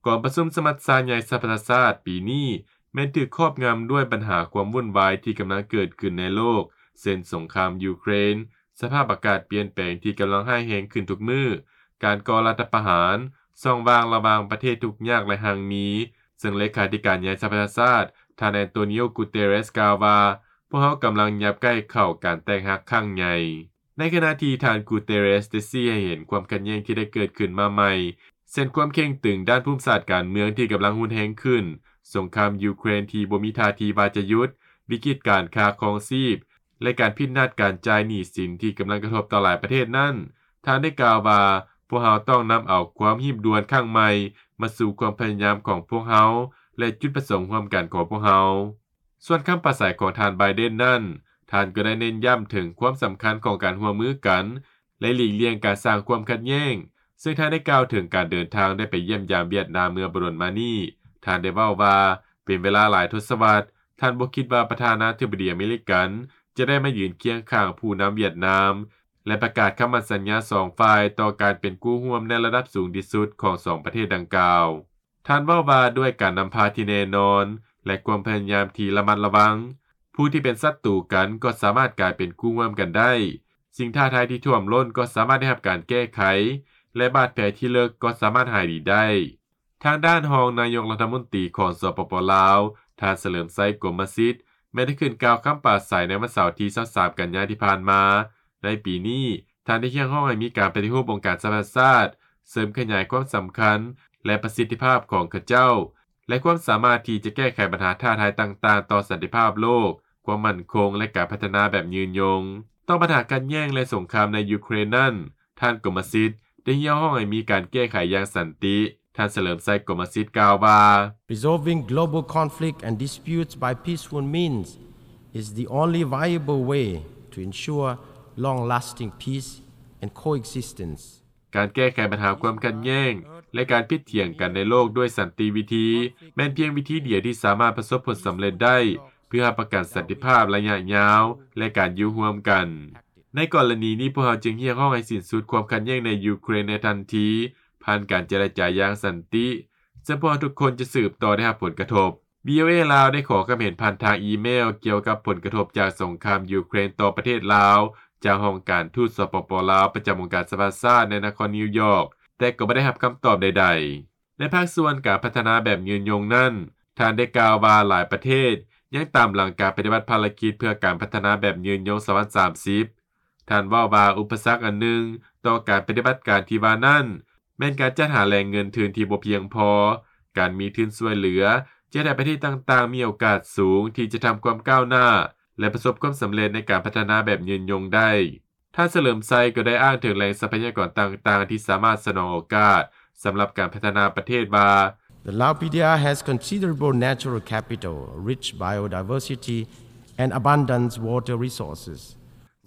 ກອງປະຊຸມສະມັດຊາໃຫຍ່ສະຫະປະຊາຊາດປີນີ້ ແມ່ນຖືກຄອບງຳດ້ວຍບັນຫາຄວາມວຸ່ນວາຍທີ່ກຳລັງເກີດຂຶ້ນໃນໂລກ ເຊັ່ນ ສົງຄາມຢູເຄຣນ, ສະພາບອາກາດປ່ຽນແປງທີ່ກຳລັງຮ້າຍແຮງຂຶ້ນທຸກມື້, ການກໍ່ລັດຖະປະຫານ, ຊ່ອງວ່າງລະຫວ່າງປະເທດທຸກຍາກ ແລະ ຮັ່ງມີ, ເຊິ່ງເລຂາທິການໃຫຍ່ສະຫະປະຊາຊາດ ທ່ານ Antonio Guterres ກ່າວວ່າ ພວກເຮົາກຳລັງຫຍັບໃກ້ເຂົ້າການແຕກຫັກຄັ້ງໃຫຍ່. ໃນຂະນະທີ່ທ່ານ Guterres ໄດ້ຊີ້ໃຫ້ເຫັນຄວາມຂັດແຍ່ງທີ່ໄດ້ເກີດຂຶ້ນມາໃໝ່ ເຊັ່ນ ຄວາມເຄັ່ງຕຶງດ້ານພູມສາດການເມືອງທີ່ກຳລັງຮຸນແຮງຂຶ້ນ, ສົງຄາມຢູເຄຣນທີ່ບໍ່ມີທ່າທີວ່າຈະຢຸດ, ວິກິດການຄ່າຄອງຊີບ ແລະ ການຜິດນັດການຈ່າຍໜີ້ສິນທີ່ກຳລັງກະທົບຕໍ່ຫຼາຍປະເທດນັ້ນ, ທ່ານໄດ້ກ່າວວ່າ ພວກເຮົາຕ້ອງນຳເອົາຄວາມຮີບດ່ວນຄັ້ງໃໝ່ມາສູ່ຄວາມພະຍາຍາມຂອງພວກເຮົາ ແລະ ຈຸດປະສົງຮ່ວມກັນຂອງພວກເຮົາ. ສ່ວນຄຳປາໄສຂອງທ່ານ Biden ນັ້ນ, ທ່ານກໍໄດ້ເນັ້ນຢ້ຳເຖິງຄວາມສຳຄັນຂອງການຮ່ວມມືກັນ ແລະ ຫຼີກລ່ຽງການສ້າງຄວາມຂັດແຍ່ງ, ເຊິ່ງທ່ານໄດ້ກ່າວເຖິງການເດີນທາງໄດ້ໄປຢ້ຽມຢາມຫວຽດນາມເມື່ອບໍ່ດົນມານີ້. ທ່ານໄດ້ເວົ້າວ່າ ເປັນເວລາຫຼາຍທົດສະວັດ, ທ່ານບໍ່ຄິດວ່າປະທານາທິບໍດີອາເມລິກັນຈະໄດ້ມາຢືນຄຽງຂ້າງຜູ້ນຳຫວຽດນາມ ແລະ ປະກາດຄຳໝັ້ນສັນຍາສອງຝ່າຍຕໍ່ການເປັນຄູ່ຮ່ວມໃນລະດັບສູງທີ່ສຸດຂອງສອງປະເທດດັ່ງກ່າວ. ທ່ານເວົ້າວ່າ ດ້ວຍການນຳພາທີ່ແນ່ນອນ ແລະ ຄວາມພະຍາຍາມທີ່ລະມັດລະວັງ, ຜູ້ທີ່ເປັນສັດຕູກັນກໍສາມາດກາຍເປັນຄູ່ຮ່ວມກັນໄດ້. ສິ່ງທ້າທາຍທີ່ຖ້ວມລົ້ນກໍສາມາດໄດ້ຮັບການແກ້ໄຂ ແລະ ບາດແຜທີ່ເລິກກໍສາມາດຫາຍດີໄດ້. ທາງດ້ານຮອງນາຍົກລັດຖະມົນຕີຂອງ ສປປ ລາວ, ທ່ານ ສະເຫຼີມໄຊ ກົມມະສິດ, ແມ່ນໄດ້ຂຶ້ນກ່າວຄຳປາໄສໃນວັນເສົາທີຊາວສາມ ກັນຍາທີ່ຜ່ານມາ. ໃນປີນີ້, ທ່ານໄດ້ຮຽກຮ້ອງໃຫ້ມີການປະຕິຮູບອົງການສະຫະປະຊາຊາດ, ເສີມຂະຫຍາຍຄວາມສຳຄັນ ແລະ ປະສິດທິພາບຂອງເຂົາເຈົ້າ ແລະ ຄວາມສາມາດທີ່ຈະແກ້ໄຂບັນຫາທ້າທາຍຕ່າງໆຕໍ່ສັນຕິພາບໂລກ, ຄວາມໝັ້ນຄົງ ແລະ ການພັດທະນາແບບຍືນຍົງ. ຕໍ່ບັນຫາຂັດແຍ່ງ ແລະ ສົງຄາມໃນຢູເຄຣນນັ້ນ, ທ່ານ ກົມມະສິດ ໄດ້ຮຽກຮ້ອງໃຫ້ມີການແກ້ໄຂຢ່າງສັນຕິ. ທ່ານ ສະເຫຼີມໄຊ ກົມມະສິດ ກ່າວວ່າ, Resolving global conflict and disputes by peaceful means is the only viable way to ensure long-lasting peace and coexistence. ການແກ້ໄຂບັນຫາຄວາມຂັດແຍ່ງ ແລະ ການຜິດຖຽງກັນໃນໂລກດ້ວຍສັນຕິວິທີ ແມ່ນພຽງວິທີດຽວທີ່ສາມາດປະສົບຜົນສຳເລັດໄດ້ ເພື່ອຮັບປະກັນສັນຕິພາບໄລຍະຍາວ ແລະ ການຢູ່ຮ່ວມກັນ. ໃນກໍລະນີນີ້, ພວກເຮົາຈຶ່ງຮຽກຮ້ອງໃຫ້ສິ້ນສຸດຄວາມຂັດແຍ່ງໃນຢູເຄຣນໃນທັນທີ ຜ່ານການເຈລະຈາຢ່າງສັນຕິ, ເຊິ່ງພວກເຮົາທຸກຄົນຈະສືບຕໍ່ໄດ້ຮັບຜົນກະທົບ. ວີໂອເອ ລາວ ໄດ້ຂໍຄຳເຫັນຜ່ານທາງອີເມວກ່ຽວກັບຜົນກະທົບຈາກສົງຄາມຢູເຄຣນຕໍ່ປະເທດລາວ ຈາກຫ້ອງການທູດ ສປປ ລາວ ປະຈຳອົງການສະຫະປະຊາຊາດໃນນະຄອນນິວຢອກ, ແຕ່ກໍບໍ່ໄດ້ຮັບຄຳຕອບໃດໆ. ໃນພາກສ່ວນການພັດທະນາແບບຍືນຍົງນັ້ນ, ທ່ານໄດ້ກ່າວວ່າຫຼາຍປະເທດຍັງຕາມຫຼັງການປະຕິບັດພາລະກິດເພື່ອການພັດທະນາແບບຍືນຍົງສອງພັນສາມສິບ. ທ່ານເວົ້າວ່າ ອຸປະສັກອັນໜຶ່ງຕໍ່ການປະຕິບັດການທີ່ວ່ານັ້ນ ແມ່ນການຈັດຫາແຫຼ່ງເງິນທຶນທີ່ບໍ່ພຽງພໍ. ການມີທຶນຊ່ວຍເຫຼືອຈະເຮັດໃຫ້ປະເທດຕ່າງໆມີໂອກາດສູງທີ່ຈະທຳຄວາມກ້າວໜ້າ ແລະ ປະສົບຄວາມສຳເລັດໃນການພັດທະນາແບບຍືນຍົງໄດ້. ທ່ານ ສະເຫຼີມໄຊ ກໍໄດ້ອ້າງເຖິງແຫຼ່ງຊັບພະຍາກອນຕ່າງໆທີ່ສາມາດສະໜອງໂອກາດສຳລັບການພັດທະນາປະເທດວ່າ, The Lao P D R has considerable natural capital, rich biodiversity, and abundant water resources.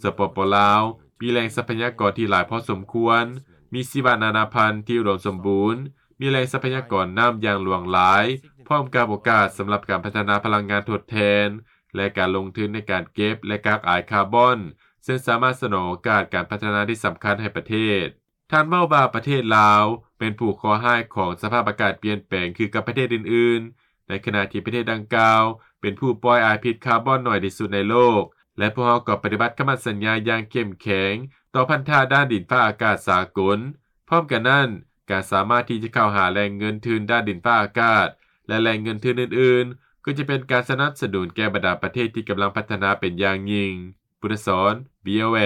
ສປປ ລາວ ມີແຫຼ່ງຊັບພະຍາກອນທີ່ຫຼາຍພໍສົມຄວນ, ມີຊີວະນານາພັນທີ່ອຸດົມສົມບູນ, ມີແຫຼ່ງຊັບພະຍາກອນນ້ຳຢ່າງຫຼວງຫຼາຍ, ພ້ອມກັບໂອກາດສຳລັບການພັດທະນາພະລັງງານທົດແທນ ແລະ ການລົງທຶນໃນການເກັບ ແລະ ກັກອາຍຄາບອນ, ເຊິ່ງສາມາດສະໜອງໂອກາດການພັດທະນາທີ່ສຳຄັນໃຫ້ປະເທດ. ທ່ານເວົ້າວ່າປະເທດລາວເປັນຜູ້ເຄາະຮ້າຍຂອງສະພາບອາກາດປ່ຽນແປງຄືກັບປະເທດອື່ນໆ, ໃນຂະນະທີ່ປະເທດດັ່ງກ່າວເປັນຜູ້ປ່ອຍອາຍພິດຄາບອນໜ້ອຍທີ່ສຸດໃນໂລກ ແລະ ພວກເຮົາກໍປະຕິບັດຄຳໝັ້ນສັນຍາຢ່າງເຂັ້ມແຂງຕໍ່ພັນທະດ້ານດິນຟ້າອາກາດສາກົນ. ພ້ອມກັນນັ້ນ, ການສາມາດທີ່ຈະເຂົ້າຫາແຫຼ່ງເງິນທຶນດ້ານດິນຟ້າອາກາດ ແລະ ແຫຼ່ງເງິນທຶນອື່ນໆ ກໍຈະເປັນການສະໜັບສະໜູນແກ່ບັນດາປະເທດທີ່ກຳລັງພັດທະນາເປັນຢ່າງຍິ່ງ. ບຸດທະສອນ ວີໂອເອ.